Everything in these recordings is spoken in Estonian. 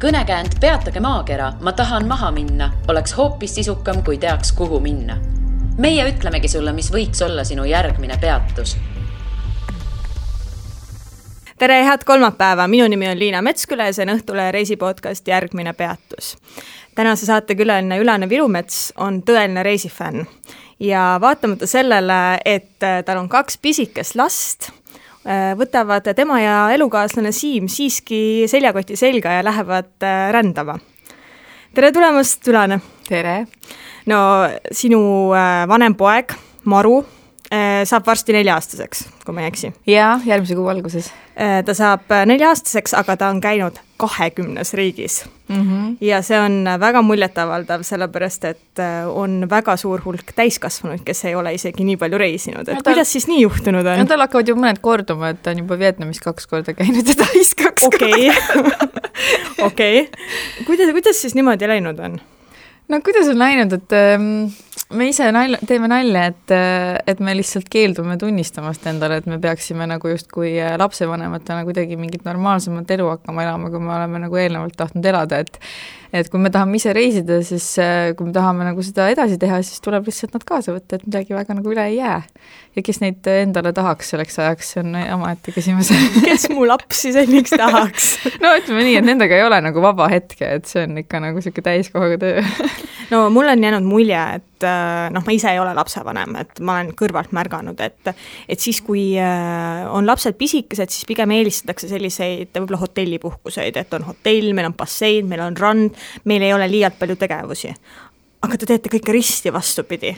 Kõnekäänd Peatage maakera, ma tahan maha minna, oleks hoopis sisukam, kui teaks, kuhu minna. Meie ütlemegi sulle, mis võiks olla sinu järgmine peatus. Tere, head kolmapäeva! Minu nimi on Liina Metsküla ja see on Õhtule reisipodcast Järgmine peatus. Tänase saate külaline Ülane Virumets on tõeline reisifänn ja vaatamata sellele, et tal on 2 pisikest last, võtavad tema ja elukaaslane Siim siiski seljakoti selga ja lähevad rändama. Tere tulemast, Ülane! Tere! No, sinu vanem poeg, Maru, saab varsti 4-aastaseks, kui ma ei eksi. Jaa, järgmise kuu alguses. Ta saab 4-aastaseks, aga ta on käinud 20 riigis. Ja see on väga muljetavaldav, sellepärast, et on väga suur hulk täiskasvanuid, kes ei ole isegi nii palju reisinud. Et kuidas siis nii juhtunud on? Tal hakkavad ju mõned korduma, et ta on juba Vietnamis 2 korda käinud ja Tais 2 korda. Okei. Kuidas siis niimoodi läinud on? No kuidas on läinud, et me ise teeme nalja, et me lihtsalt keeldume tunnistamast endale, et me peaksime nagu just kui lapsevanematena kuidagi mingit normaalsemat elu hakkama elama, kui me oleme nagu eelnevalt tahtnud elada, et kui me tahame ise reisida, siis kui me tahame nagu seda edasi teha, siis tuleb lihtsalt nad kaasa võtta, et midagi väga nagu üle ei jää. Ja kes neid endale tahaks selleks ajaks, see on omaette küsimus. Kes mu lapsi selliks tahaks? No ütleme nii, et nendega ei ole nagu vaba hetke, et see on ikka nagu selline täiskohaga töö. No mul on jäänud mulje, et ma ise ei ole lapsevanem, et ma olen kõrvalt märganud, et siis kui on lapsed pisikesed, siis pigem eelistatakse selliseid võib-olla hotellipuhkuseid, et on hotell, meil on bassein, meil on rand, meil ei ole liialt palju tegevusi. Aga te teete kõike risti vastupidi.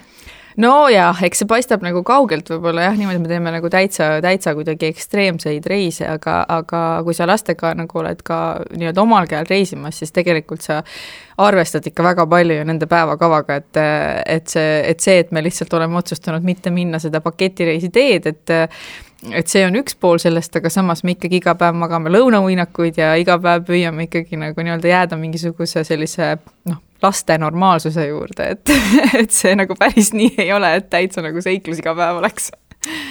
No jah, eks see paistab nagu kaugelt võib-olla jah, niimoodi me teeme nagu täitsa kuidagi ekstreemseid reise, aga kui sa lastega nagu oled ka nii-öelda omal käel reisimas, siis tegelikult sa arvestad ikka väga palju ju nende päevakavaga, et me lihtsalt oleme otsustanud mitte minna seda paketireisi teed, et see on üks pool sellest, aga samas me ikkagi iga päev magame lõunauinakuid ja iga päev püüame ikkagi nagu nii-öelda jääda mingisuguse sellise laste normaalsuse juurde, et see nagu päris nii ei ole, et täitsa nagu seiklus iga päev oleks.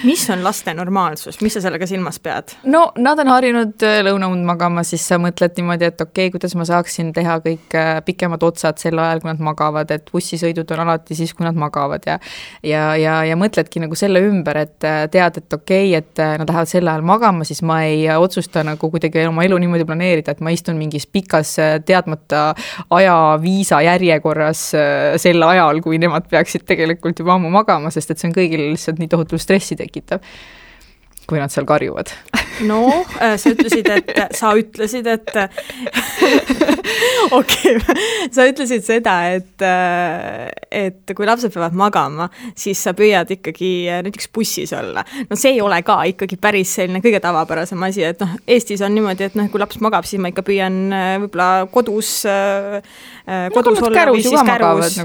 Mis on laste normaalsus? Mis sa sellega silmas pead? No, nad on harjunud lõunaund magama, siis sa mõtled niimoodi, et okei, kuidas ma saaksin teha kõik pikemad otsad sel ajal, kui nad magavad, et bussisõidud on alati siis, kui nad magavad ja mõtledki nagu selle ümber, et tead, et okei, et nad lähevad sel ajal magama, siis ma ei otsusta nagu kuidagi oma elu niimoodi planeerida, et ma istun mingis pikas teadmata ajaviisa järjekorras sel ajal, kui nemad peaksid tegelikult juba ammu magama, sest et see on kõigil lihtsalt nii tohutu stressi tekitab, kui nad seal karjuvad. No, sa ütlesid, et okei, sa ütlesid seda, et kui lapsed peavad magama, siis sa püüad ikkagi näiteks bussis olla. No see ei ole ka ikkagi päris selline kõige tavapärasem asi, et Eestis on niimoodi, et kui laps magab, siis ma ikka püüan võib-olla kodus olla või siis kärus.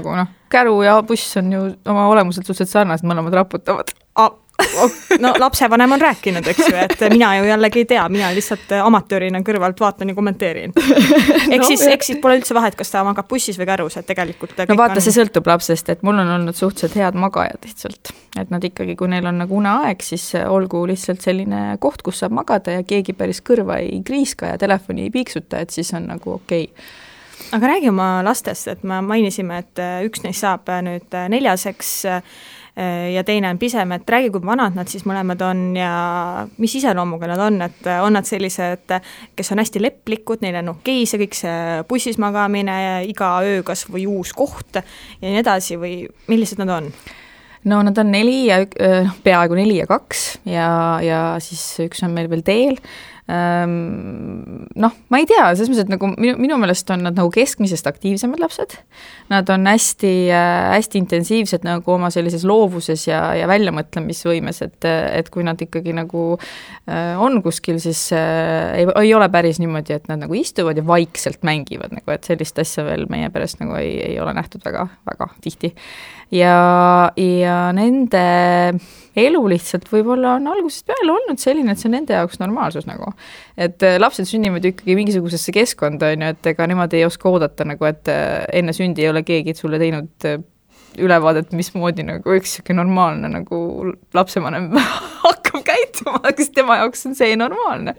Käru ja buss on ju oma olemuselt suhteliselt sarnased, mõlemad raputavad. No lapsevanem on rääkinud, eks ju, et mina ju jällegi ei tea, mina lihtsalt amatöörina kõrvalt vaatan ja kommenteerin. Eks siis pole üldse vahet, kas ta magab bussis või kärus, et tegelikult no vaata, see sõltub lapsest, et mul on olnud suhteliselt head magajad lihtsalt, et nad ikkagi, kui neil on nagu uneaeg, siis olgu lihtsalt selline koht, kus saab magada ja keegi päris kõrva ei kriiska ja telefoni ei piiksuta, et siis on nagu okei. Aga räägi oma lastest, et me mainisime, et üks neist saab nüüd 4-seks ja teine on pisem, et räägi, kui vanad nad siis mõlemad on ja mis iseloomuga nad on, et on nad sellised, kes on hästi lepplikud, neil on okei see kõik see bussis magamine, iga öö kas või uus koht ja nii edasi või millised nad on? No nad on 4 ja peaaegu 4 ja 2 ja siis üks on meil veel teel. Ma ei tea, selles mõttes, et nagu minu meelest on nad nagu keskmisest aktiivsemad lapsed. Nad on hästi intensiivsed nagu oma sellises loovuses ja väljamõtlemisvõimes, et kui nad ikkagi nagu on kuskil, siis ei ole päris niimoodi, et nad nagu istuvad ja vaikselt mängivad, nagu, et sellist asja veel meie perest nagu ei ole nähtud väga, väga tihti. Ja nende elu lihtsalt võib-olla on algusest peale olnud selline, et see on nende jaoks normaalsus nagu. Et lapsed sünnivad ikkagi mingisugusesse keskkonda, et ega nemad ei oska oodata nagu, et enne sündi ei ole keegi sulle teinud ülevaadet, mismoodi nagu üks normaalne nagu lapsevanem hakkab käituma, kas tema jaoks on see normaalne.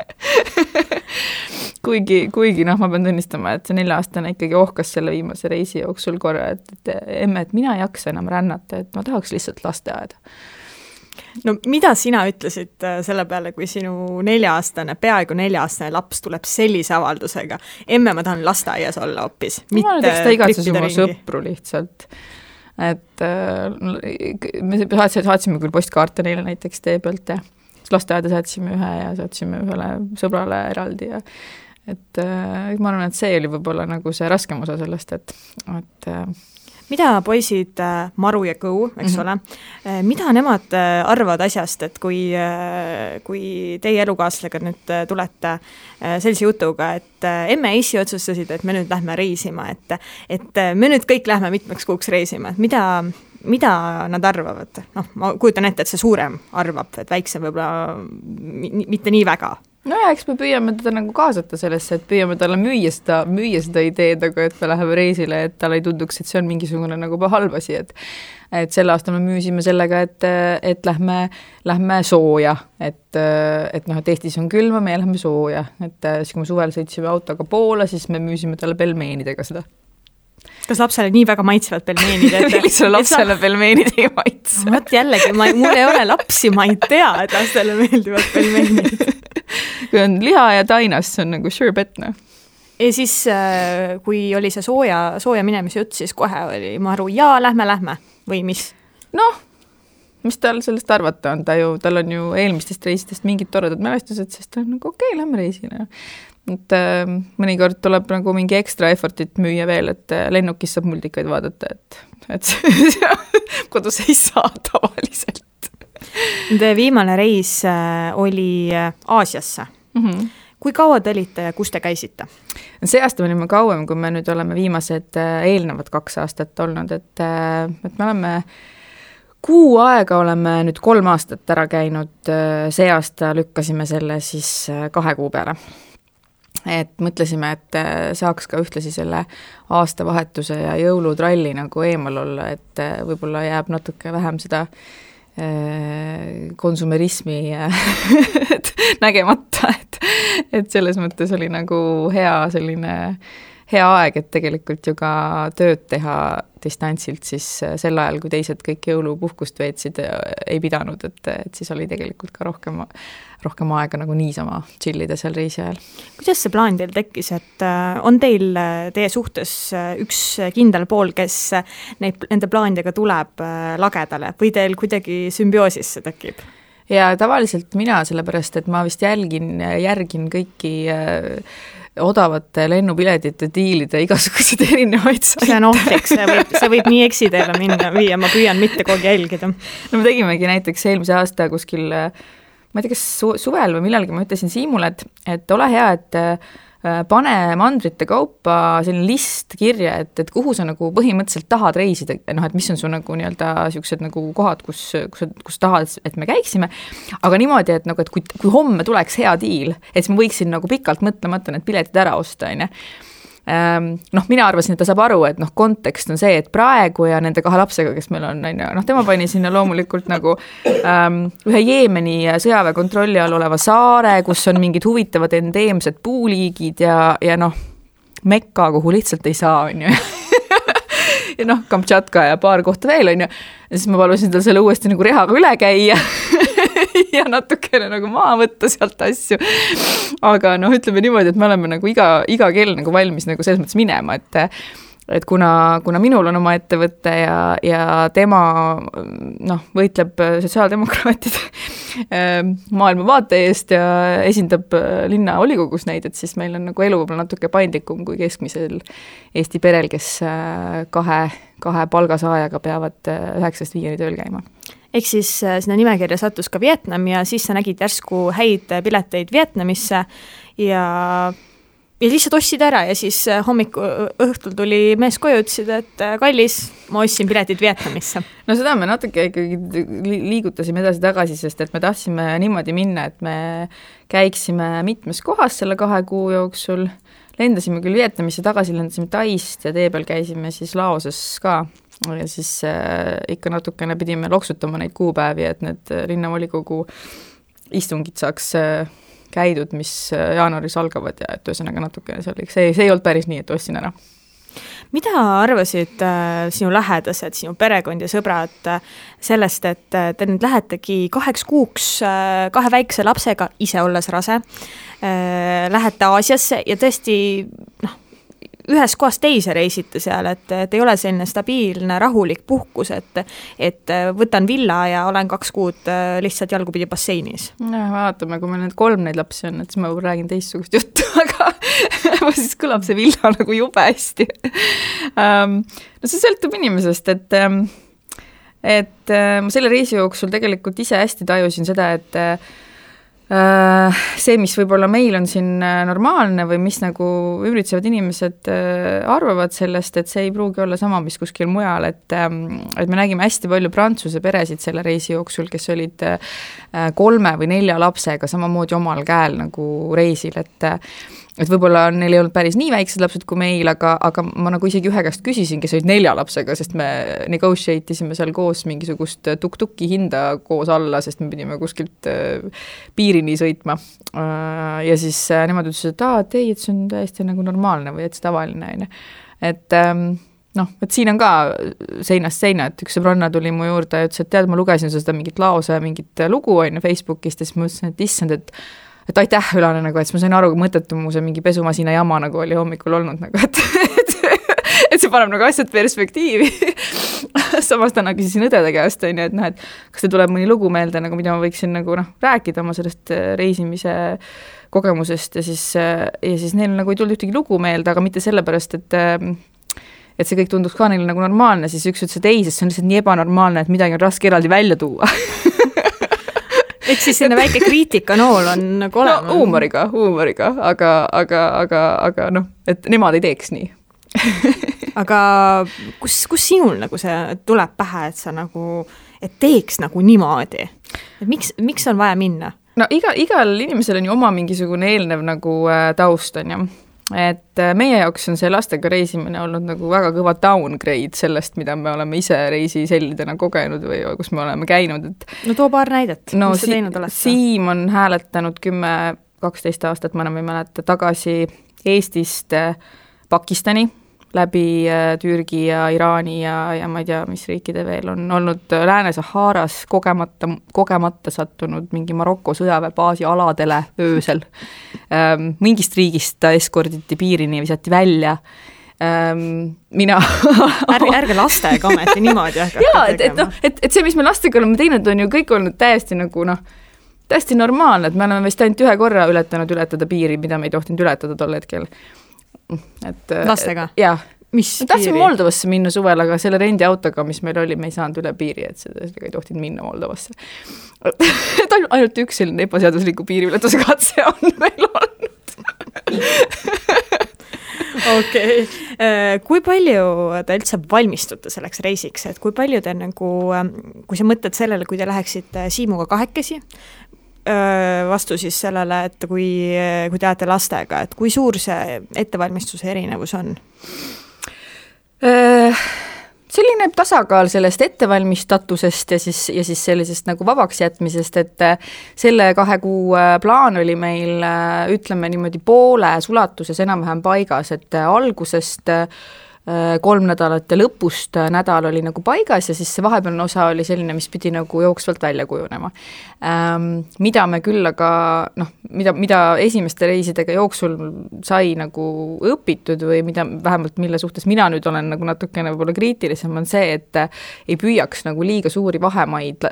kuigi noh, ma pean tunnistama, et see 4-aastane ikkagi ohkas selle viimase reisi jooksul korra, et emme, et mina ei jaksa enam rännata, et ma tahaks lihtsalt lasteaeda. No mida sina ütlesid selle peale, kui sinu 4-aastane, peaaegu 4-aastane laps tuleb sellise avaldusega? Emme, ma tahan lasteaias olla hoopis. Ma näiteks ta igatsus oma sõpru lihtsalt. Et me saatsime küll postkaarte neile näiteks tee pealt ja lasteaeda saatsime ühe ja saatsime ühele sõbrale eraldi ja et ma arvan, et see oli võib-olla nagu see raskem osa sellest, et mida poisid Maru ja Kõu, eks ole, mida nemad arvavad asjast, et kui teie elukaaslasega nüüd tulete sellise jutuga, et emme ja issi otsustasid, et me nüüd lähme reisima, et me nüüd kõik lähme mitmeks kuuks reisima, et mida nad arvavad? Noh, ma kujutan ette, et see suurem arvab, et väiksem võib-olla mitte nii väga. No ja, eks me püüame teda nagu kaasata sellesse, et püüame talle müüa seda ideed, aga et me läheme reisile, et talle ei tunduks, et see on mingisugune nagu halb asi, et sel aastal me müüsime sellega, et lähme sooja, et noh, et Eestis on külma, me lähme sooja, et siis kui me suvel sõitsime autoga Poola, siis me müüsime talle pelmeenidega seda. Kas lapsele nii väga maitsevad pelmeenid? Lihtsalt lapsele pelmeenid ei maitse. Võt jällegi, mul ei ole lapsi, ma ei tea, et lastele meeldivad pelmeenid. Kui on liha ja tainas, see on nagu sure bet, noh. Ja siis, kui oli see sooja minemise jutt, siis kohe oli Maru, jaa, lähme, või mis? Noh, mis tal sellest arvata on, tal on ju eelmistest reisitest mingid toredad mälestused, sest ta on nagu okei, lähme reisile. Et mõnikord tuleb nagu mingi ekstra effortit müüa veel, et lennukis saab multikaid vaadata, et kodus ei saa tavaliselt. Te viimane reis oli Aasiasse. Kui kaua te olite ja kus te käisite? See aasta me olime kauem, kui me nüüd oleme viimased eelnevad 2 aastat olnud, et me oleme kuu aega oleme nüüd 3 aastat ära käinud, see aasta lükkasime selle siis 2 kuu peale. Et mõtlesime, et saaks ka ühtlasi selle aastavahetuse ja jõulutralli nagu eemal olla, et võib-olla jääb natuke vähem seda konsumerismi nägemata, et selles mõttes oli nagu hea aeg, et tegelikult ju ka tööd teha distantsilt siis sel ajal, kui teised kõik jõulupuhkust veetsid, ei pidanud, et siis oli tegelikult ka rohkem aega nagu niisama chillida seal reisi ajal. Kuidas see plaan teil tekkis, et on teie suhtes üks kindel pool, kes nende plaanidega tuleb lagedale või teil kuidagi sümbioosis see tekib? Ja tavaliselt mina, sellepärast, et ma vist järgin kõiki odavate lennupiletite diilide igasuguseid erinevaid saite. See on ohtlik, see võib nii eksiteele minna viia, ma püüan mitte kogu jälgida. No me tegimegi näiteks eelmise aasta kuskil, ma ei tea, kas suvel või millalgi ma ütlesin Siimule, et ole hea, et pane mandrite kaupa selline list kirja, et kuhu sa nagu põhimõtteliselt tahad reisida, noh, et mis on su nagu nii-öelda siuksed nagu kohad, kus tahad, et me käiksime, aga niimoodi, et nagu, et kui homme tuleks hea diil, et siis ma võiksin nagu pikalt mõtlemata need piletid ära osta, on. Noh, mina arvasin, et ta saab aru, et noh, kontekst on see, et praegu ja nende 2 lapsega, kes meil on, noh, tema pani sinna loomulikult nagu ühe Jeemeni sõjaväe kontrolli all oleva saare, kus on mingid huvitavad endeemsed puuliigid ja noh, Mekka, kuhu lihtsalt ei saa, on ju. Ja noh, Kamtšatka ja paar kohta veel, on ju. Ja siis ma palusin tal selle uuesti nagu rehaga üle käia ja natukene nagu maha võtta sealt asju. Aga noh, ütleme niimoodi, et me oleme nagu iga kell nagu valmis nagu selles mõttes minema, et kuna minul on oma ettevõtte ja tema noh, võitleb sotsiaaldemokraatide maailmavaate eest ja esindab linna volikogus neid, et siis meil on nagu elu võib-olla natuke paindlikum kui keskmisel Eesti perel, kes kahe palgasaajaga peavad 9-5 tööl käima. Ehk siis sinna nimekirja sattus ka Vietnam ja siis sa nägid järsku häid pileteid Vietnamisse ja lihtsalt ostsid ära ja siis õhtul tuli mees koju, ütlesid, et kallis, ma ostsin piletid Vietnamisse. No seda me natuke ikkagi liigutasime edasi-tagasi, sest et me tahtsime niimoodi minna, et me käiksime mitmes kohas selle 2 kuu jooksul, lendasime küll Vietnamisse, tagasi lendasime Taist ja tee peal käisime siis Laoses ka. Ja siis ikka natukene pidime loksutama neid kuupäevi, et need linnavolikogu istungid saaks käidud, mis jaanuaris algavad ja et ühesõnaga natukene see ei olnud päris nii, et ostsin ära. Mida arvasid sinu lähedased, sinu perekond ja sõbrad sellest, et te nüüd lähetegi 2 kuuks 2 väikse lapsega, ise olles rase, lähete Aasiasse ja tõesti ühes kohas teise reisite seal, et ei ole selline stabiilne, rahulik puhkus, et võtan villa ja olen 2 kuud lihtsalt jalgupidi basseinis. Vaatame, kui meil 3 neid lapsi on, et siis ma räägin teistsugust juttu, aga siis kõlab see villa nagu jube hästi. No see sõltub inimesest, et ma selle reisi jooksul tegelikult ise hästi tajusin seda, et see, mis võib-olla meil on siin normaalne või mis nagu ümbritsevad inimesed arvavad sellest, et see ei pruugi olla sama, mis kuskil mujal, et me nägime hästi palju prantsuse peresid selle reisi jooksul, kes olid 3 või 4 lapsega samamoodi omal käel nagu reisil, et võib-olla neil ei olnud päris nii väiksed lapsed kui meil, aga ma nagu isegi ühe käest küsisin, kes olid 4 lapsega, sest me negotiate isime seal koos mingisugust tuk-tuki hinda koos alla, sest me pidime kuskilt piirini sõitma. Ja siis nemad ütlesid, et ei, et see on täiesti nagu normaalne või et see tavaline. Et et siin on ka seinast seina, et üks sõbranna tuli mu juurde ja ütles, et tead, ma lugesin seda mingit lause, mingit lugu Facebookist ja siis ma ütlesin, et issand, et aitäh, Ülane, nagu, et ma sain aru, kui mõttetu mu see mingi pesumasina jama nagu oli hommikul olnud, nagu, et see paneb nagu asjad perspektiivi. Samas täna küsisin õdede käest, et kas te tuleb mõni lugu meelde, nagu, mida ma võiksin nagu, rääkida oma sellest reisimise kogemusest ja siis neil nagu ei tulnud ühtegi lugu meelde, aga mitte sellepärast, et see kõik tunduks ka neile nagu normaalne, siis üks ütles, et ei, sest see on lihtsalt nii ebanormaalne, et midagi on raske eraldi välja tuua. Et siis selline väike kriitikanool on nagu olema. No huumoriga, aga et nemad ei teeks nii. Aga kus sinul nagu see tuleb pähe, et sa nagu, et teeks nagu niimoodi? Et miks on vaja minna? No igal inimesel on ju oma mingisugune eelnev nagu taust on ju. Et meie jaoks on see lastega reisimine olnud nagu väga kõva downgrade sellest, mida me oleme ise reisisellidena kogenud või kus me oleme käinud. No too paar näidet, mis sa teinud oled? Siim on hääletanud 10-12 aastat, ma enam ei mäleta, tagasi Eestist Pakistani läbi Türgi ja Iraani ja ma ei tea, mis riikide veel on olnud Lääne-Saharas kogemata sattunud mingi Maroko sõjaväebaasi aladele öösel. Mingist riigist ta eskorditi piirini ja visati välja. Mina ärge lastega ometi niimoodi et see, mis me lastega oleme teinud, on ju kõik olnud täiesti nagu täiesti normaalne, et me oleme vist ainult 1 korra ületada piiri, mida me ei tohtinud ületada tol hetkel. Lastega? Jah. Mis tahtsime Moldovasse minna suvel, aga selle rendiautoga, mis meil oli, me ei saanud üle piiri, et sellega ei tohtinud minna Moldovasse. Et ainult üks selline ebaseadusliku piiriületuse katse on meil olnud. Okei. Kui palju te üldse valmistute selleks reisiks, et kui palju te nagu, kui sa mõtled sellele, kui te läheksite Siimuga 2 vastu siis sellele, et kui te olete lastega, et kui suur see ettevalmistuse erinevus on? Selline tasakaal sellest ettevalmistatusest ja siis sellisest nagu vabaks jätmisest, et selle 2 kuu plaan oli meil, ütleme niimoodi pooles ulatuses enam-vähem paigas, et algusest 3 nädalat ja lõpust nädal oli nagu paigas ja siis see vahepealne osa oli selline, mis pidi nagu jooksvalt välja kujunema. Mida me küll aga, mida esimeste reisidega jooksul sai nagu õpitud või mida vähemalt mille suhtes mina nüüd olen nagu natukene võib-olla kriitilisem on see, et ei püüaks nagu liiga suuri vahemaid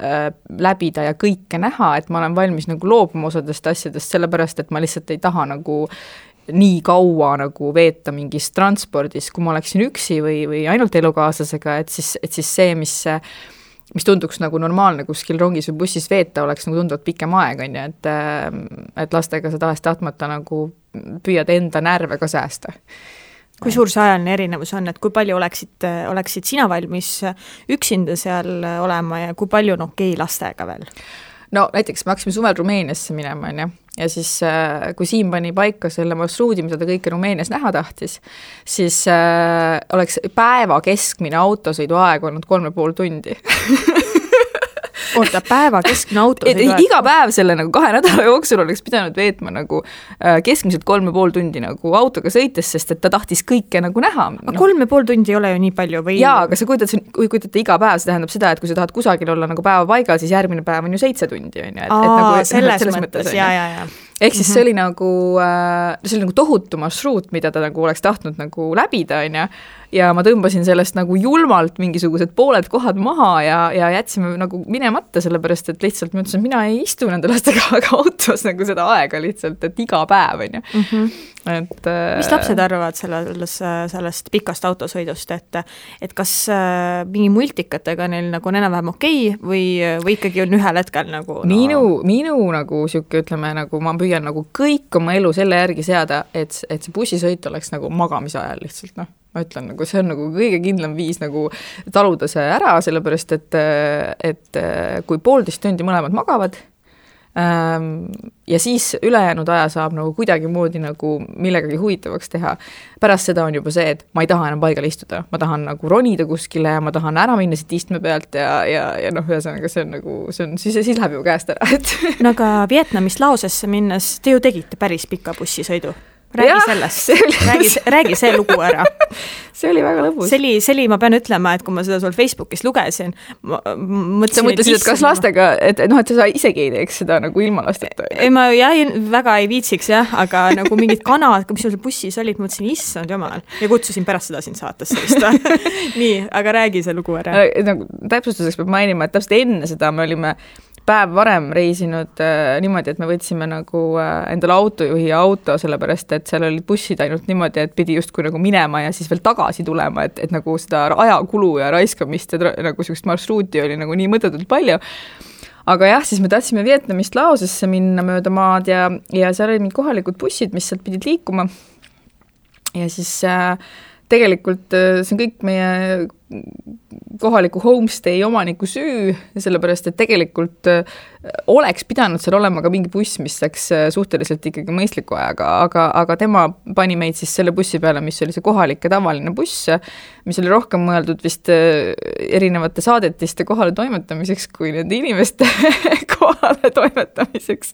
läbida ja kõike näha, et ma olen valmis nagu loobuma osadest asjadest, sellepärast et ma lihtsalt ei taha nagu nii kaua nagu veeta mingis transpordis, kui ma oleksin üksi või ainult elukaaslasega, et siis see, mis tunduks nagu normaalne kuskil rongis või bussis veeta, oleks nagu tunduvalt pikem aeg, on ju, et lastega sa tahes-tahtmata nagu püüad enda närve ka säästa. Kui suur see ajaline erinevus on, et kui palju oleksid sina valmis üksinda seal olema ja kui palju okei lastega veel? No näiteks me hakkasime suvel Rumeeniasse minema, on ju. Ja siis, kui Siim pani paika selle marsruudi, mida ta kõike Rumeenias näha tahtis, siis oleks päeva keskmine autosõidu aeg olnud 3,5 tundi. oota, päeva keskmine autosõidu? Iga päev selle nagu 2 nädala jooksul oleks pidanud veetma nagu keskmiselt 3,5 tundi nagu autoga sõites, sest et ta tahtis kõike nagu näha. Aga 3,5 tundi ei ole ju nii palju või? Jaa, aga sa kujutate iga päev, see tähendab seda, et kui sa tahad kusagil olla nagu päeva paigal, siis järgmine päev on ju 7 tundi. Nagu, selles mõttes, jaa. Ehk siis see oli nagu tohutu marsruut, mida ta nagu oleks tahtnud nagu läbida, ja ma tõmbasin sellest nagu julmalt mingisugused pooled kohad maha ja jätsime nagu minemata, sellepärast, et lihtsalt ma ütlesin, et mina ei istu nende lastega autos nagu seda aega lihtsalt, et iga päev, Mis lapsed arvavad sellest pikast autosõidust, et kas mingi multikatega neil nagu on enam-vähem okei või ikkagi on ühel hetkel nagu Minu nagu siuke, ütleme, nagu ma püüan nagu kõik oma elu selle järgi seada, et see bussisõit oleks nagu magamise ajal lihtsalt, ma ütlen, nagu see on nagu kõige kindlam viis nagu taluda see ära, sellepärast, et kui 1,5 tundi mõlemad magavad ja siis ülejäänud aja saab nagu kuidagi moodi nagu millegagi huvitavaks teha. Pärast seda on juba see, et ma ei taha enam paigal istuda, ma tahan nagu ronida kuskile ja ma tahan ära minna siit istme pealt ja ühesõnaga see on nagu, siis läheb ju käest ära. No aga Vietnamist Laosesse minnes te ju tegite päris pika bussisõidu. Räägi sellest, räägi see lugu ära. See oli väga lõbus. See oli, ma pean ütlema, et kui ma seda sul Facebookis lugesin, sa mõtlesid, et kas lastega, et sa isegi ei teeks seda nagu ilma lasteta? Ei, ma väga ei viitsiks, aga nagu mingid kanad, mis sul bussis olid, mõtlesin, issand jumal, ja kutsusin pärast seda siin saates sellist. Nii, aga räägi see lugu ära. Täpsustuseks peab mainima, et täpselt enne seda me olime päev varem reisinud niimoodi, et me võtsime nagu endale autojuhi auto, sellepärast, et seal olid bussid ainult niimoodi, et pidi justkui nagu minema ja siis veel tagasi tulema, et nagu seda ajakulu ja raiskamist ja nagu sellist marsruuti oli nagu nii mõttetult palju. Aga jah, siis me tahtsime Vietnamist Laosesse minna mööda maad ja seal olid mingid kohalikud bussid, mis sealt pidid liikuma. Ja siis tegelikult see on kõik meie kohaliku homestay omaniku süü, sellepärast, et tegelikult oleks pidanud seal olema ka mingi buss, mis läks suhteliselt ikkagi mõistliku ajaga, aga tema pani meid siis selle bussi peale, mis oli see kohalik ja tavaline buss, mis oli rohkem mõeldud vist erinevate saadetiste kohale toimetamiseks kui nende inimeste kohale toimetamiseks.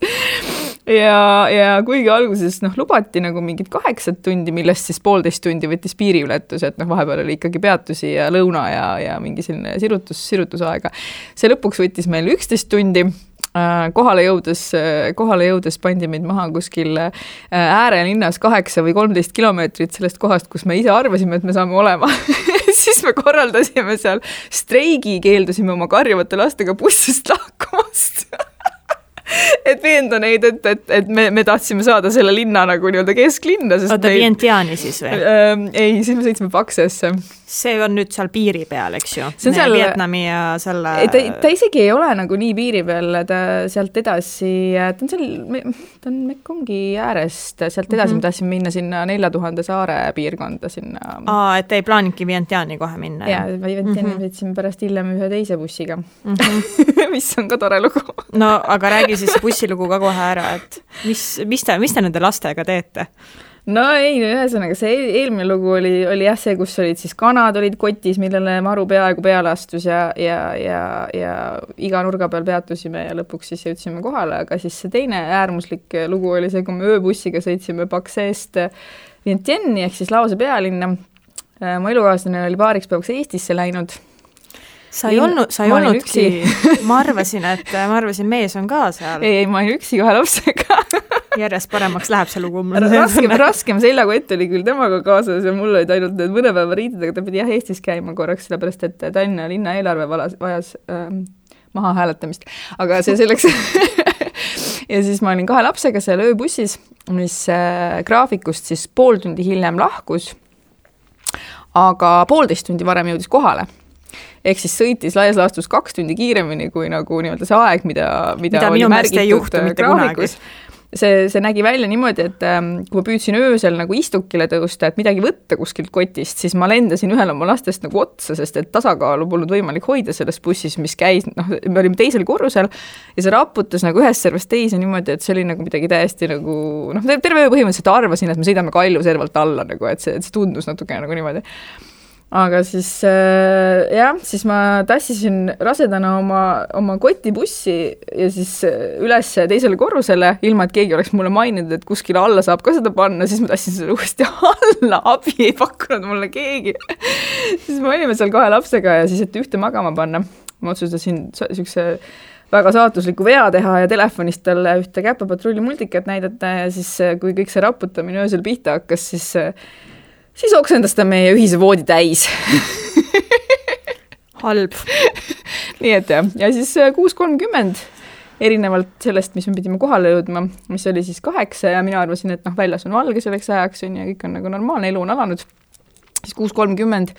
Ja kuigi alguses lubati nagu mingid 8 tundi, millest siis 1,5 tundi võttis piiriületus, et vahepeal oli ikkagi peatusi ja lõuna ja mingi selline sirutusaega. See lõpuks võttis meil 11 tundi. Kohale jõudes pandi meid maha kuskil äärelinnas 8 või 13 kilomeetrit sellest kohast, kus me ise arvasime, et me saame olema. Siis me korraldasime seal streigi, keeldusime oma karjuvate lastega bussist lahkumast. Et veenda neid, et me tahtsime saada selle linna nagu nii-öelda kesklinna. Oota, Vientiani siis või? Ei, siis me sõitsime Paksesse. See on nüüd seal piiri peal, eks ju? See on seal Vietnami ja selle... Ta isegi ei ole nagu nii piiri peal, ta sealt edasi, ta on Mekongi äärest, sealt edasi me tahtsime minna sinna 4000 saare piirkonda sinna. Et ei plaaninudki Vientiani kohe minna? Jaa, Vientiani sõitsime pärast hiljem ühe teise bussiga, mis on ka tore lugu. No, aga räägi siis bussilugu ka kohe ära, et mis te nende lastega teete? No ei, ühesõnaga see eelmine lugu oli jah see, kus olid siis kanad olid kotis, millele maru peaaegu peale astus ja iga nurga peal peatusime ja lõpuks siis jõudsime kohale, aga siis see teine äärmuslik lugu oli see, kui me ööbussiga sõitsime Pakseest Vientianni ehk siis Laose pealinna. Mu elukaaslane oli paariks päevaks Eestisse läinud. Sa ei olnudki, ma arvasin mees on ka seal. Ei, ma olin üksi 2 lapsega. Järjest paremaks läheb see lugu. Raskem seljakott oli küll temaga kaasas ja mul olid ainult need mõne päeva riided, aga ta pidi jah Eestis käima korraks, sellepärast et Tallinna linna eelarve vajas maha hääletamist. Aga see selleks... Ja siis ma olin 2 lapsega seal ööbussis, mis graafikust siis 1,5 tundi hiljem lahkus, aga 1,5 tundi varem jõudis kohale. Ehk siis sõitis laias laastus 2 tundi kiiremini kui nagu nii-öelda see aeg, mida oli märgitud graafikus. See nägi välja niimoodi, et kui ma püüdsin öösel nagu istukile tõusta, et midagi võtta kuskilt kotist, siis ma lendasin ühel oma lastest nagu otsa, sest et tasakaalu polnud võimalik hoida selles bussis, mis käis, me olime teisel korrusel ja see raputas nagu ühest servast teise niimoodi, et see oli nagu midagi täiesti nagu, terve öö põhimõtteliselt arvasin, et me sõidame Kalju servalt alla, nagu, et see tundus natuke nagu niimoodi. aga siis siis ma tassisin rasedana oma kotibussi ja siis üles teisele korrusele, ilma et keegi oleks mulle maininud, et kuskile alla saab ka seda panna, siis ma tassin selle uuesti alla, abi ei pakkunud mulle keegi. Siis me olime seal 2 lapsega ja siis, et ühte magama panna, ma otsustasin niisuguse väga saatusliku vea teha ja telefonist talle ühte Käpapatrulli multikat näidata ja siis, kui kõik see raputamine öösel pihta hakkas, siis oksendas ta meie ühise voodi täis. Halb. Nii et ja siis 6.30 erinevalt sellest, mis me pidime kohale jõudma, mis oli siis 8 ja mina arvasin, et väljas on valge selleks ajaks ja kõik on nagu normaalne, elu on alanud. Siis 6.30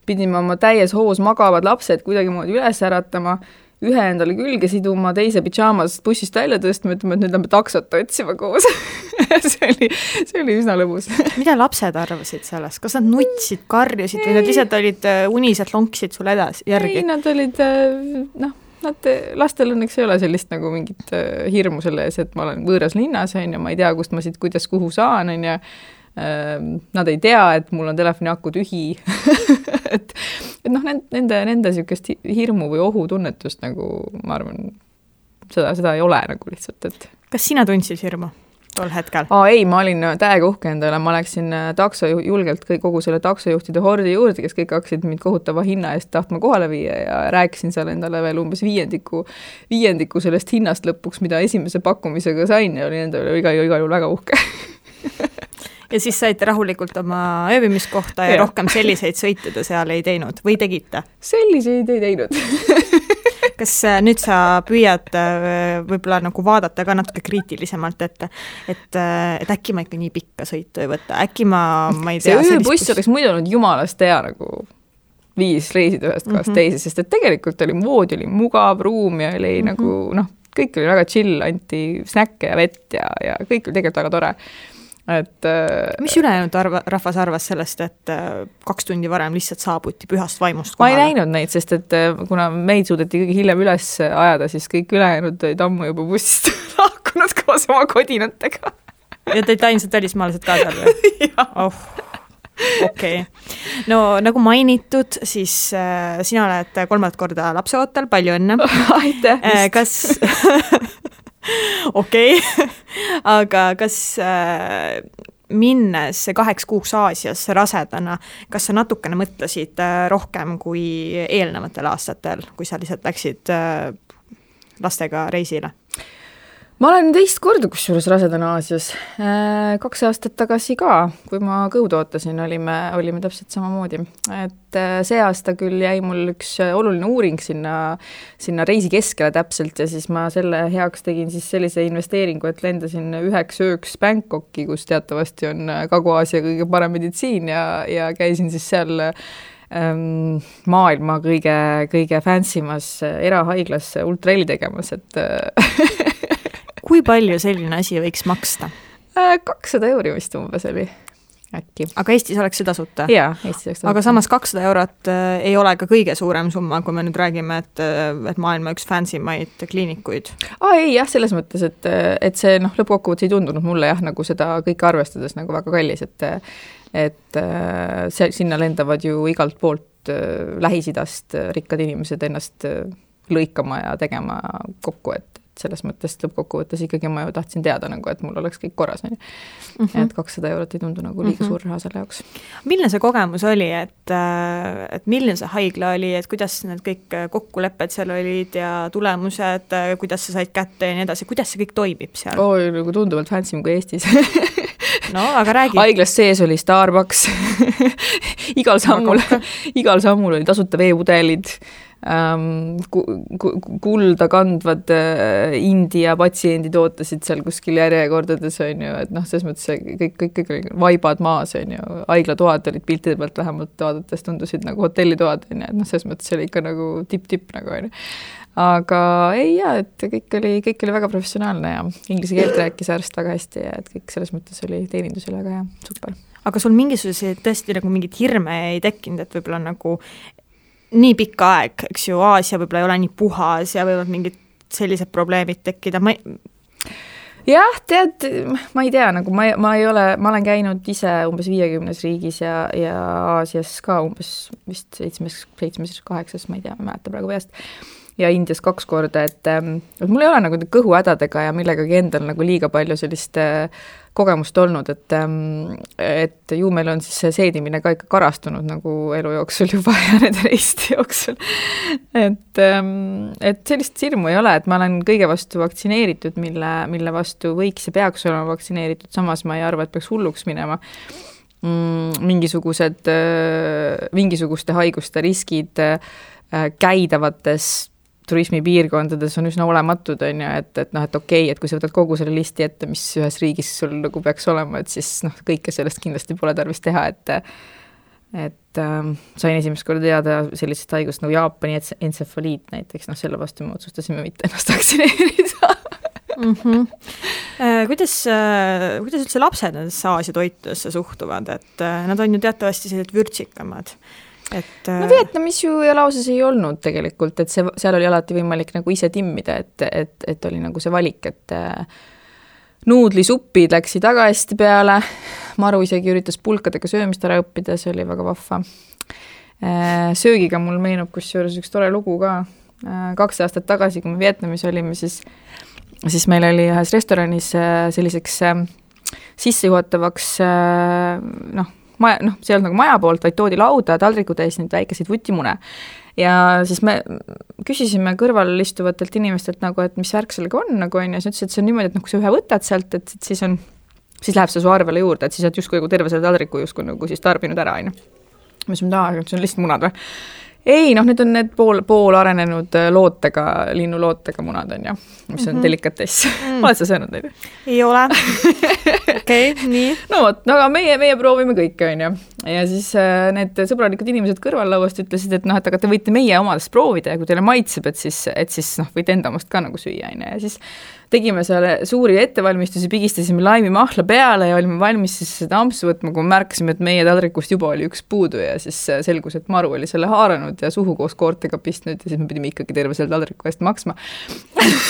pidime oma täies hoos magavad lapsed kuidagi moodi üles äratama, ühe endale külge siduma, teise pidžaamas bussist välja tõstma, ütleme, et nüüd lähme taksot otsima koos. see oli üsna lõbus. Mida lapsed arvasid sellest? Kas nad nutsid, karjusid või nad lihtsalt olid unised, lonksid sul järgi? Ei, nad olid, lastel õnneks ei ole sellist nagu mingit hirmu selle ees, et ma olen võõras linnas, ja ma ei tea, kust ma siit kuidas kuhu saan, ja nad ei tea, et mul on telefoni aku tühi. et nende sükest hirmu või ohutunnetust nagu, ma arvan, seda ei ole nagu lihtsalt, et... Kas sina tundsid hirmu tol hetkel? Ei, ma olin täiega uhke endale, ma läksin julgelt kogu selle taksojuhtide hordi juurde, kes kõik hakkasid mind kohutava hinna eest tahtma kohale viia ja rääkisin seal endale veel umbes viiendiku sellest hinnast lõpuks, mida esimese pakkumisega sain ja oli endale igal juhul väga uhke. Ja siis saite rahulikult oma ööbimiskohta ja rohkem selliseid sõite te seal ei teinud või tegite? Selliseid ei teinud. Kas nüüd sa püüad võib-olla nagu vaadata ka natuke kriitilisemalt, et äkki ma ikka nii pikka sõitu ei võta, äkki ma ei tea... See ööbuss oleks muidu olnud jumalast hea nagu 5 reisida ühest kohast teise, sest et tegelikult oli voodi, oli mugav ruum ja oli nagu, kõik oli väga chill, anti snäkke ja vett ja kõik oli tegelikult väga tore. Mis ülejäänud rahvas arvas sellest, et 2 tundi varem lihtsalt saabuti pühast vaimust kohale? Ma ei näinud neid, sest et kuna meid suudeti kõige hiljem üles ajada, siis kõik ülejäänud olid ammu juba bussist lahkunud koos oma kodinatega. Ja teid ainsad välismaalased ka seal või? Okei. No nagu mainitud, siis sina oled 3. korda lapseootel, palju õnne. Aitäh! Kas... Okei, aga kas minnes 8 kuuks Aasias rasedana, kas sa natukene mõtlesid rohkem kui eelnevatel aastatel, kui sa lihtsalt läksid lastega reisile? Ma olen 2 korda kusjuures rasedana Aasias. 2 aastat tagasi ka, kui ma kõud ootasin, olime täpselt samamoodi. Et see aasta küll jäi mul üks oluline uuring sinna reisi keskele täpselt ja siis ma selle heaks tegin siis sellise investeeringu, et lendasin 1 ööks Bangkoki, kus teatavasti on Kagu-Aasia kõige parem meditsiin ja käisin siis seal maailma kõige fancymas erahaiglas ultraheli tegemas, et... Kui palju selline asi võiks maksta? 200 euri vist umbes oli äkki. Aga Eestis oleks see tasuta? Jaa, Eestis oleks tasuta. Aga samas 200 eurot ei ole ka kõige suurem summa, kui me nüüd räägime, et maailma üks fancymaid kliinikuid. Ei jah, selles mõttes, et see lõppkokkuvõttes ei tundunud mulle nagu seda kõike arvestades nagu väga kallis, et sinna lendavad ju igalt poolt Lähis-Idast rikkad inimesed ennast lõikama ja tegema kokku, et selles mõttes lõppkokkuvõttes ikkagi ma ju tahtsin teada, nagu, et mul oleks kõik korras. Et 200 eurot ei tundu nagu liiga suur raha selle jaoks. Milline see kogemus oli, et milline see haigla oli, et kuidas need kõik kokkulepped seal olid ja tulemused, kuidas sa said kätte ja nii edasi, kuidas see kõik toimib seal? Nagu tunduvalt fancy kui Eestis. No, aga räägi. Haiglas sees oli Starbucks. igal sammul oli tasuta veepudelid. Kulda kandvad India patsiendid ootasid seal kuskil järjekordades, on ju, et selles mõttes kõik vaibad maas, on ju, haiglatoad olid piltide pealt vähemalt vaadates tundusid nagu hotellitoad, on ju, et selles mõttes oli ikka nagu tipp nagu, on ju. Aga ei jaa, et kõik oli väga professionaalne ja inglise keelt rääkis arst väga hästi ja et kõik selles mõttes oli teenindus oli väga hea, super. Aga sul mingisuguseid tõesti nagu mingid hirme ei tekkinud, et võib-olla nagu nii pikka aeg, eks ju, Aasia võib-olla ei ole nii puhas ja võivad mingid sellised probleemid tekkida. jah, tead, ma ei tea, nagu ma olen käinud ise umbes 50 riigis ja Aasias ka umbes vist 7-8, ma ei tea, ma ei mäleta praegu peast, ja Indias 2 korda, et mul ei ole nagu kõhuhädadega ja millegagi endal nagu liiga palju sellist kogemust olnud, et ju meil on siis see seedimine ka ikka karastunud nagu elu jooksul juba ja nende reiste jooksul. Et sellist hirmu ei ole, et ma olen kõige vastu vaktsineeritud, mille vastu võiks ja peaks olema vaktsineeritud, samas ma ei arva, et peaks hulluks minema. Mingisuguste haiguste riskid käidavates turismipiirkondades on üsna olematud, on ju, et okei, et kui sa võtad kogu selle listi ette, mis ühes riigis sul nagu peaks olema, et siis kõike sellest kindlasti pole tarvis teha, et sain esimest korda teada sellisest haigust nagu Jaapani entsefaliit näiteks, selle vastu me otsustasime mitte ennast vaktsineerida. Kuidas üldse lapsed nendesse Aasia toitudesse suhtuvad, et nad on ju teatavasti sellised vürtsikamad? No Vietnamis ju ja lauses ei olnud tegelikult, et seal oli alati võimalik nagu ise timmida, et oli nagu see valik, et nuudlisuppid läksid väga hästi peale, Maru isegi üritas pulkadega söömist ära õppida, see oli väga vahva. Söögiga mul meenub kusjuures üks tore lugu ka. 2 aastat tagasi, kui me Vietnamis olime, siis meil oli ühes restoranis selliseks sissejuhatavaks see on nagu maja poolt, vaid toodi lauda taldriku täis neid väikeseid vutimune. Ja siis me küsisime kõrval istuvatelt inimestelt nagu, et mis värk sellega on, nagu on, ja siis ütles, et see on niimoodi, et kui sa ühe võtad sealt, et siis läheb see su arvele juurde, et siis oled justkui terve selle taldriku justkui nagu siis tarbinud ära, on. Mis on see on lihtsalt munad või? Ei, need on need pool arenenud linnulootega munad on ja, mis on delikatess. Oled sa söönud neid? Ei ole. Okei, nii. No vot, aga meie proovime kõike on ja siis need sõbralikud inimesed kõrvallauast ütlesid, et aga te võite meie omadest proovida ja kui teile maitseb, et siis võite enda omast ka nagu süüa ja siis tegime selle suuri ettevalmistusi, pigistasime laimimahla peale ja olime valmis siis seda ampsu võtma, kui märkasime, et meie taldrikust juba oli üks puudu ja siis selgus, et Maru oli selle haaranud ja suhu koos koortega pistnud ja siis me pidime ikkagi terve selle taldriku eest maksma.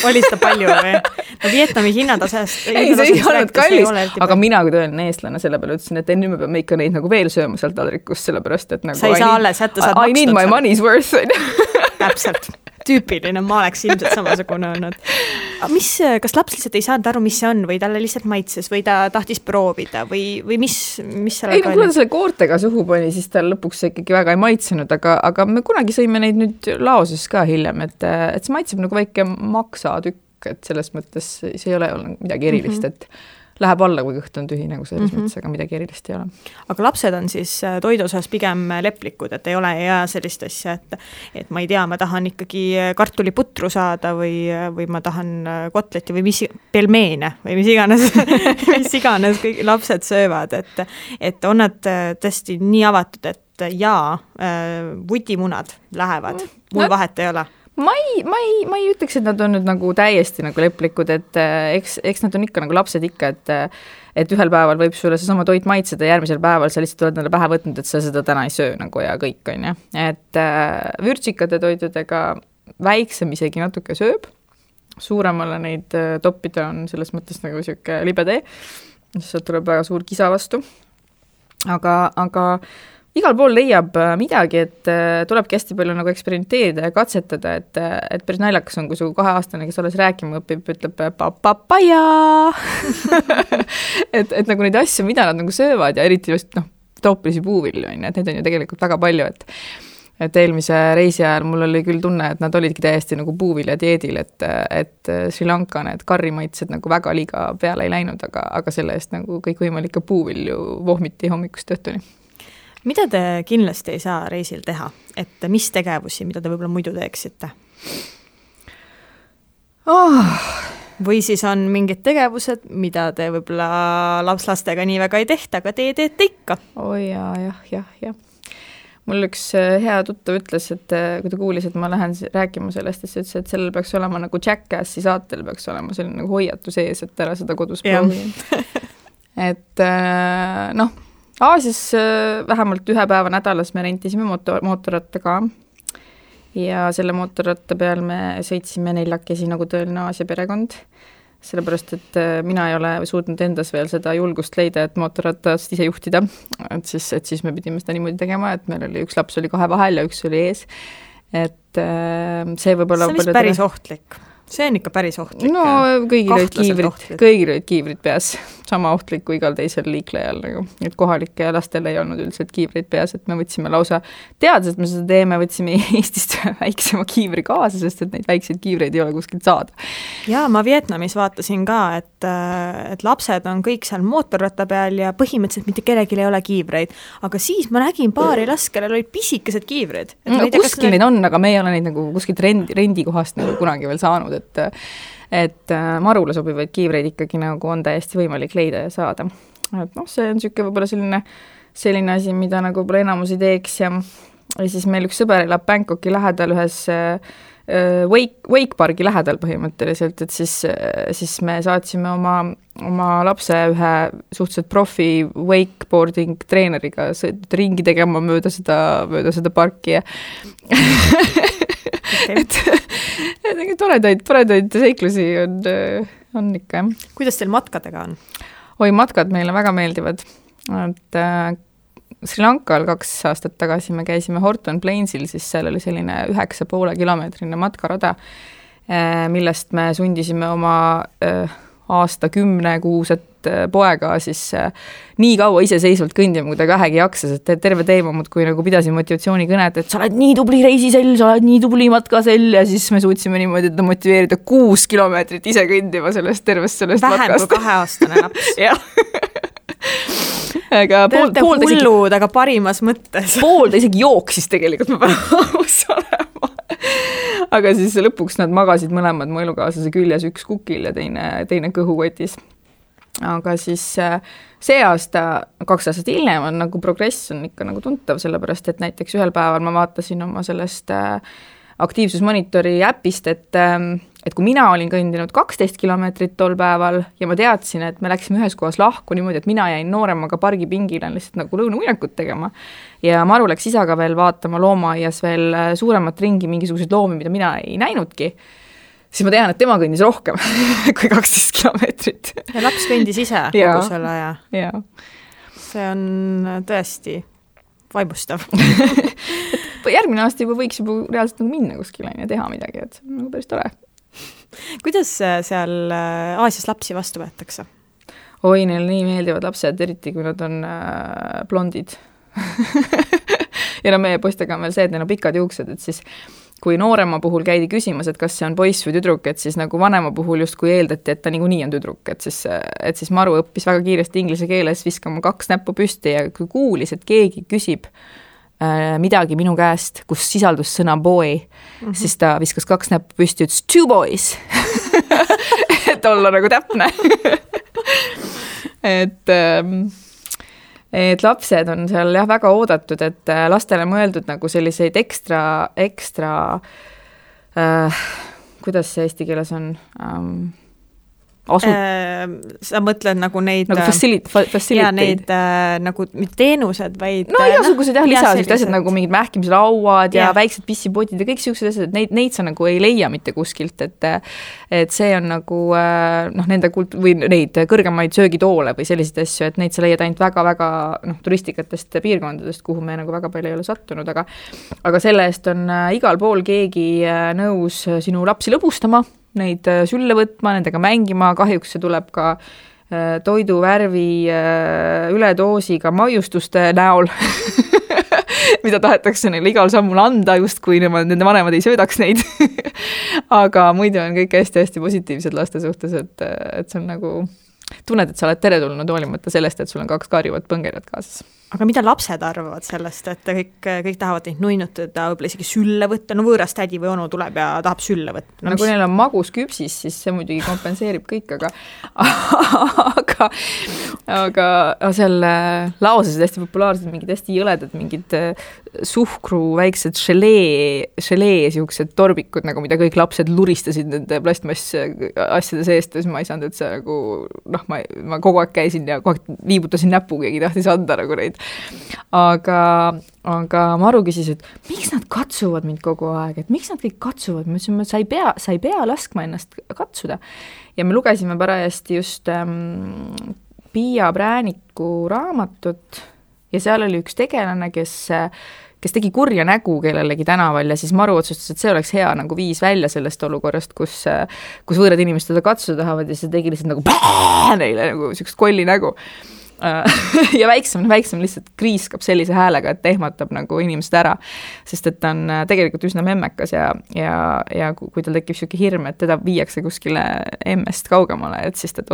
Oli seda palju või? No Vietnami hinnatasest ei, see ei olnud kallis, aga mina kui tõeline eestlane selle peale ütlesin, et nüüd me peame ikka neid nagu veel sööma sealt taldrikust, sellepärast, et nagu sa ei saa alles jätta, saad I need my money's worth. Täpselt. Tüüpiline, ma oleks ilmselt samasugune olnud. Kas laps lihtsalt ei saanud aru, mis see on või talle lihtsalt maitses või ta tahtis proovida või mis seal ei, kui ta selle koortega suhu pani, siis ta lõpuks ikkagi väga ei maitsenud, aga me kunagi sõime neid nüüd laoses ka hiljem, et see maitseb nagu väike maksatükk, et selles mõttes see ei ole midagi erilist, et läheb alla, kui kõht on tühi, nagu selles mõttes, aga midagi erilist ei ole. Aga lapsed on siis toidu osas pigem leplikud, et ei ole ja sellist asja, et ma ei tea, ma tahan ikkagi kartuliputru saada või ma tahan kotleti või pelmeene või mis iganes kõik lapsed söövad, et on nad tõesti nii avatud, et vutimunad lähevad, mul vahet ei ole. Ma ei ütleks, et nad on nüüd nagu täiesti nagu leplikud, et eks nad on ikka nagu lapsed ikka, et ühel päeval võib sulle see sama toit maitseda, järgmisel päeval sa lihtsalt oled pähe võtnud, et sa seda täna ei söö nagu ja kõik on ja. Et vürtsikate toitudega väiksem isegi natuke sööb, suuremale neid toppida on selles mõttes nagu siuke libe tee, sealt tuleb väga suur kisa vastu, aga igal pool leiab midagi, et tulebki hästi palju nagu eksperimenteerida ja katsetada, et päris naljakas on, kui su 2-aastane, kes alles rääkima õpib, ütleb papapaja. et nagu neid asju, mida nad nagu söövad ja eriti just troopilisi puuvilju, et neid on ju tegelikult väga palju, et eelmise reisi ajal mul oli küll tunne, et nad olidki täiesti nagu puuvilja dieedil, et Sri Lanka need karrimaitsed nagu väga liiga peale ei läinud, aga selle eest nagu kõikvõimalikke puuvilju vohmiti hommikust õhtuni. Mida te kindlasti ei saa reisil teha? Et mis tegevusi, mida te võib-olla muidu teeksite? Või siis on mingid tegevused, mida te võib-olla lapslastega nii väga ei tehta, aga te teete ikka? Jah. Mul üks hea tuttav ütles, et kui ta kuulis, et ma lähen rääkima sellest, siis ütles, et sellel peaks olema nagu Jackassi saatel peaks olema selline nagu hoiatu sees, et ära seda kodus proovida. Et Aasias vähemalt 1 päeva nädalas me rentisime mootorratta ka ja selle mootorratta peal me sõitsime 4 nagu tõeline Aasia perekond. sellepärast, et mina ei ole suutnud endas veel seda julgust leida, et mootorratast ise juhtida, et siis me pidime seda niimoodi tegema, et meil oli üks laps oli 2 vahel ja üks oli ees, et see võib-olla... See on vist päris ohtlik. See on ikka päris ohtlik. No kõigil olid kiivrid peas, sama ohtlik kui igal teisel liiklejal, nagu. Et kohalike lastel ei olnud üldiselt kiivrid peas, et me võtsime lausa teades, et me seda teeme, võtsime Eestist väiksema kiivri kaasa, sest et neid väikseid kiivreid ei ole kuskilt saada. Ja ma Vietnamis vaatasin ka, et lapsed on kõik seal mootorratta peal ja põhimõtteliselt mitte kellelgi ei ole kiivreid, aga siis ma nägin paari last, kellel olid pisikesed kiivrid. No, kuskil neid on, aga me ei ole neid nagu kuskilt rendikohast nagu kunagi veel saanud, et marule sobivaid kiivreid ikkagi nagu on täiesti võimalik leida ja saada. Et see on siuke võib-olla selline asi, mida nagu võib-olla enamus ei teeks ja siis meil üks sõber elab Bangkoki lähedal ühes Wakepargi lähedal põhimõtteliselt, et siis me saatsime oma lapse ühe suhteliselt profi wakeboarding treeneriga ringi tegema mööda seda parki ja et toredaid seiklusi on ikka, jah. Kuidas teil matkadega on? Matkad meile väga meeldivad. Et Sri Lankal 2 aastat tagasi me käisime Horton Plainsil, siis seal oli selline 9,5 kilomeetrine matkarada, millest me sundisime oma aasta 10 kuuset poega siis nii kaua iseseisvalt kõndima, kui ta vähegi jaksas, et terve teemamud, kui nagu pidasin motivatsioonikõnet, et sa oled nii tubli reisisell, sa oled nii tubli matkasell ja siis me suutsime niimoodi, et motiveerida 6 kilomeetrit ise kõndima sellest matkast. Vähem kui 2-aastane laps. Jah. Aga te olete hullud, aga parimas mõttes. Pool ta isegi jooksis tegelikult, ma pean aus olema. Aga siis lõpuks nad magasid mõlemad mu elukaaslase küljes, üks kukil ja teine kõhukotis. Aga siis see aasta, 2 aastat hiljem on nagu progress on ikka nagu tuntav, sellepärast, et näiteks ühel päeval ma vaatasin oma sellest aktiivsusmonitori äpist, et kui mina olin kõndinud 12 kilomeetrit tol päeval ja ma teadsin, et me läksime ühes kohas lahku niimoodi, et mina jäin nooremaga pargipingile lihtsalt nagu lõunamuinakut tegema ja Maru läks isaga veel vaatama loomaaias veel suuremat ringi mingisuguseid loomi, mida mina ei näinudki, siis ma tean, et tema kõndis rohkem kui 12 kilomeetrit. Ja laps kõndis ise kogu selle aja. Ja. See on tõesti vaibustav. Järgmine aasta juba võiks juba reaalselt nagu minna kuskile ja teha midagi, et see on nagu päris tore. Kuidas seal Aasias lapsi vastu võetakse? Neil nii meeldivad lapsed, eriti kui nad on blondid. Ja meie poistega on veel see, et neil on pikad juuksed, et siis kui noorema puhul käidi küsimas, et kas see on poiss või tüdruk, et siis nagu vanema puhul just kui eeldati, et ta niikuinii on tüdruk, et siis Maru õppis väga kiiresti inglise keeles viskama 2 näppu püsti ja kui kuulis, et keegi küsib midagi minu käest, kus sisaldus sõna boy, siis ta viskas 2 näppu püsti, ütles 2 boys. Et olla nagu täpne. Et lapsed on seal jah väga oodatud, et lastele mõeldud nagu selliseid ekstra kuidas see eesti keeles on? Sa mõtled nagu neid nagu faciliteid. Ja neid nagu teenused, vaid igasugused lisased asjad nagu mingid mähkimislauad ja väiksed pissipotid ja kõik siuksed asjad, et neid sa nagu ei leia mitte kuskilt, et see on nagu nende või neid kõrgemaid söögitoole või selliseid asju, et neid sa leiad ainult väga-väga turistikatest piirkondadest, kuhu me nagu väga palju ei ole sattunud, aga selle eest on igal pool keegi nõus sinu lapsi lõbustama, neid sülle võtma, nendega mängima, kahjuks see tuleb ka toiduvärvi üledoosiga maiustuste näol, mida tahetakse neile igal sammul anda, just kui nende vanemad ei söödaks neid. Aga muidu on kõik hästi-hästi positiivsed laste suhtes, et see on nagu tunned, et sa oled teretulnud hoolimata sellest, et sul on 2 karjuvat põngerjat kaasas. Aga mida lapsed arvavad sellest, et kõik tahavad neid nuinutada, võib-olla isegi sülle võtta, no võõras tädi või onu tuleb ja tahab sülle võtta. No kui neil on magus küpsis, siis see muidugi kompenseerib kõik, aga seal laosasid hästi populaarsed, mingid hästi jõledad, mingid suhkru väiksed želee siuksed torbikud, nagu mida kõik lapsed luristasid nende plastmass asjade seest, siis ma ei saanud, et see nagu ma kogu aeg käisin ja kogu aeg viibutasin näpu, keegi tahtis anda nagu neid. Aga Maru küsis, et miks nad katsuvad mind kogu aeg, et miks nad kõik katsuvad, ma ütlesin, sa ei pea laskma ennast katsuda. Ja me lugesime parajasti just Piia Prääniku raamatut ja seal oli üks tegelane, kes tegi kurja nägu kellelegi tänaval ja siis Maru otsustas, et see oleks hea nagu viis välja sellest olukorrast, kus võõrad inimesed teda katsuda tahavad ja see tegi lihtsalt nagu neile nagu sellist kolli nägu. Ja väiksem lihtsalt kriiskab sellise häälega, et ehmatab nagu inimesed ära, sest et ta on tegelikult üsna memmekas ja kui tal tekib selline hirm, et teda viiakse kuskile emmest kaugemale, et siis ta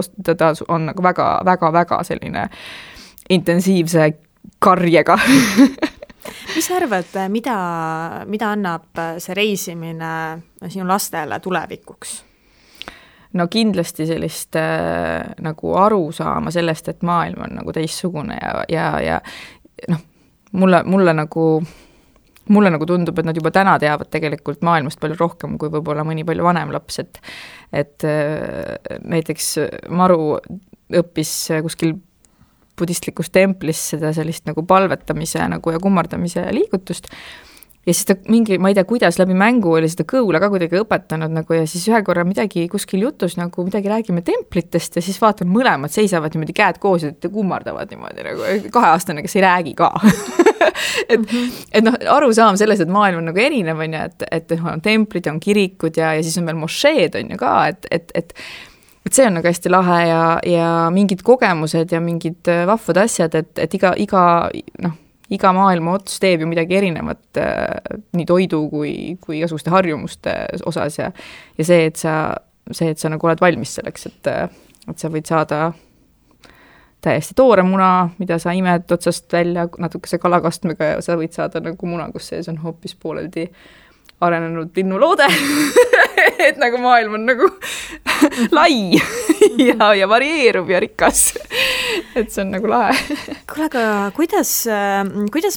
on nagu väga selline intensiivse karjega. Mis arvad, mida annab see reisimine sinu lastele tulevikuks? No kindlasti sellist nagu aru saama sellest, et maailm on nagu teistsugune ja mulle nagu tundub, et nad juba täna teavad tegelikult maailmast palju rohkem kui võib-olla mõni palju vanem laps, et näiteks Maru õppis kuskil budistlikus templis seda sellist nagu palvetamise nagu ja kummardamise liigutust ja siis ta ma ei tea, kuidas läbi mängu oli seda kõula ka kuidagi õpetanud nagu ja siis ühe korra midagi kuskil jutus nagu midagi räägime templitest ja siis vaatan mõlemad seisavad niimoodi käed koos ja kummardavad niimoodi nagu 2-aastane, kes ei räägi ka. et arusaam selles, et maailm on nagu erinev on ja et on templid, on kirikud ja siis on veel mošeed on ju ka, et see on nagu hästi lahe ja mingid kogemused ja mingid vahvad asjad, et iga maailma ots teeb ju midagi erinevat nii toidu kui igasuguste harjumuste osas ja see, et sa nagu oled valmis selleks, et sa võid saada täiesti toore muna, mida sa imed otsast välja natukese kalakastmega ja sa võid saada nagu muna, kus sees on hoopis pooleldi arenenud linnuloode, et nagu maailm on nagu lai ja varieerub ja rikas. Et see on nagu lahe. Kuule, aga kuidas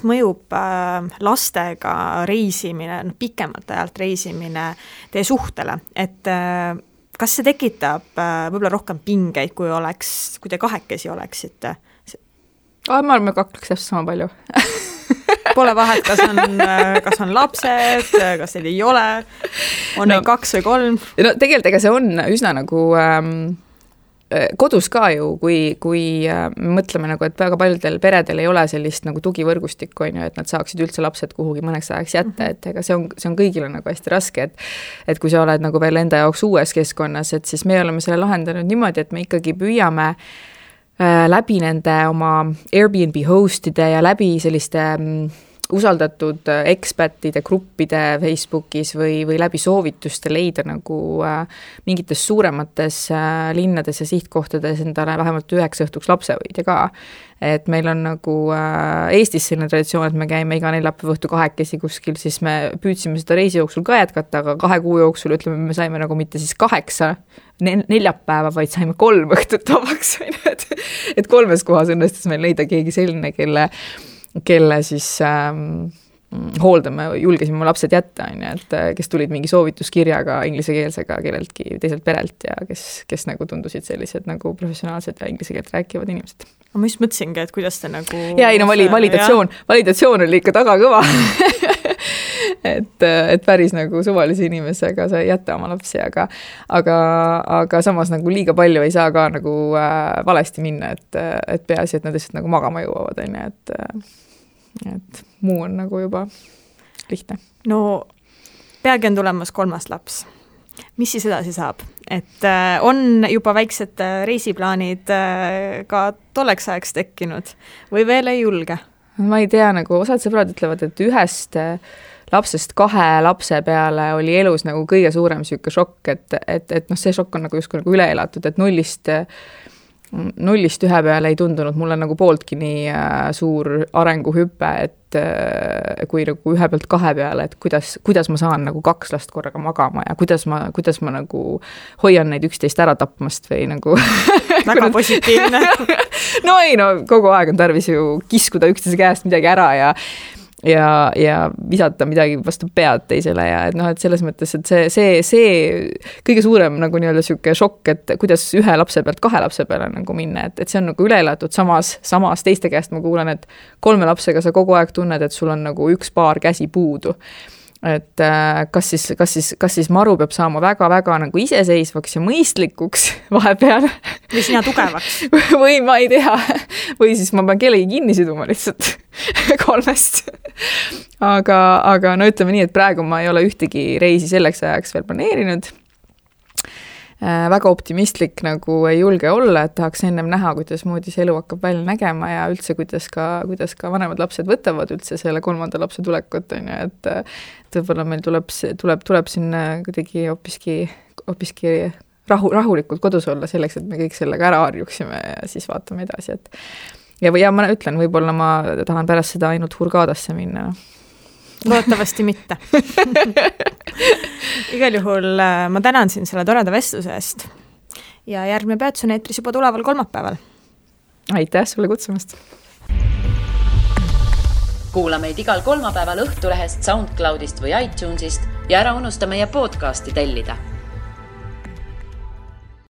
mõjub lastega reisimine, pikemalt ajalt reisimine teie suhtele, et kas see tekitab võib-olla rohkem pingeid, kui te kahekesi oleksite? Ma arvan, me kakleks täpselt sama palju. Pole vahet, kas on lapsed, kas neid ei ole, on neid 2 või 3? No tegelikult ega see on üsna nagu kodus ka ju, kui mõtleme nagu, et väga paljudel peredel ei ole sellist nagu tugivõrgustikku, on ju, et nad saaksid üldse lapsed kuhugi mõneks ajaks jätta, et ega see on kõigile nagu hästi raske, et kui sa oled nagu veel enda jaoks uues keskkonnas, et siis me oleme selle lahendanud niimoodi, et me ikkagi püüame läbi nende oma Airbnb hostide ja läbi selliste usaldatud ekspertide gruppide Facebookis või läbi soovituste leida nagu mingites suuremates linnades ja sihtkohtades endale vähemalt 9 õhtuks lapsevõidja ka. Et meil on nagu Eestis selline traditsioon, et me käime iga neljapäeva õhtu 2 kuskil, siis me püüdsime seda reisi jooksul ka jätkata, aga 2 kuu jooksul ütleme, me saime nagu mitte siis 8 neljapäeva, vaid saime 3 õhtut vabaks. Et 3 kohas õnnestus meil leida keegi selline, kelle siis hooldame, julgesime mu lapsed jätta, et kes tulid mingi soovituskirjaga inglisekeelsega kelleltki teiselt perelt ja kes nagu tundusid sellised nagu professionaalsed ja inglise keelt rääkivad inimesed. Ma just mõtlesingi, et kuidas te nagu... validatsioon oli ikka taga kõva. et päris nagu suvalise inimesega sa ei jäta oma lapsi, aga samas nagu liiga palju ei saa ka nagu valesti minna, et peaasi, et nad lihtsalt nagu magama jõuavad, et muu on nagu juba lihtne. No peagi on tulemas 3. laps. Mis siis edasi saab? Et on juba väiksed reisiplaanid ka tolleks ajaks tekkinud või veel ei julge? Ma ei tea, nagu osad sõbrad ütlevad, et 1 lapsest 2 lapse peale oli elus nagu kõige suurem selline šokk, et see šokk on nagu justkui nagu üle elatud, et 0-st 1 peale ei tundunud mulle nagu pooltki nii suur arenguhüpe, et kui nagu 1 pealt 2 peale, et kuidas ma saan nagu 2 last korraga magama ja kuidas ma nagu hoian neid 11 ära tapmast või nagu väga positiivne. No kogu aeg on tarvis ju kiskuda üksteise käest midagi ära ja visata midagi vastu pead teisele ja et noh, et selles mõttes, et see kõige suurem nagu nii-öelda sihuke šokk, et kuidas ühe lapse pealt 2 lapse peale nagu minna, et see on nagu üle elatud, samas teiste käest ma kuulen, et 3 lapsega sa kogu aeg tunned, et sul on nagu 1 paar käsi puudu. Et kas siis Maru peab saama väga-väga nagu iseseisvaks ja mõistlikuks vahepeal. Või sina tugevaks. Või ma ei tea. Või siis ma pean kellegi kinni siduma lihtsalt 3. Aga no ütleme nii, et praegu ma ei ole ühtegi reisi selleks ajaks veel planeerinud. Väga optimistlik nagu ei julge olla, et tahaks ennem näha, kuidas moodi see elu hakkab välja nägema ja üldse, kuidas ka vanemad lapsed võtavad üldse selle 3. lapse tulekut, et võib-olla meil tuleb siin kuidagi hoopiski rahulikult kodus olla selleks, et me kõik sellega ära harjuksime ja siis vaatame edasi, et ja ma ütlen, võib-olla ma tahan pärast seda ainult Hurghadasse minna. Loodetavasti mitte. Igal juhul ma tänan siin selle toreda vestluse eest ja järgmine peatus on eetris juba tuleval kolmapäeval. Aitäh sulle kutsumast! Kuula meid igal kolmapäeval Õhtulehest, SoundCloudist või iTunesist ja ära unusta meie podcasti tellida.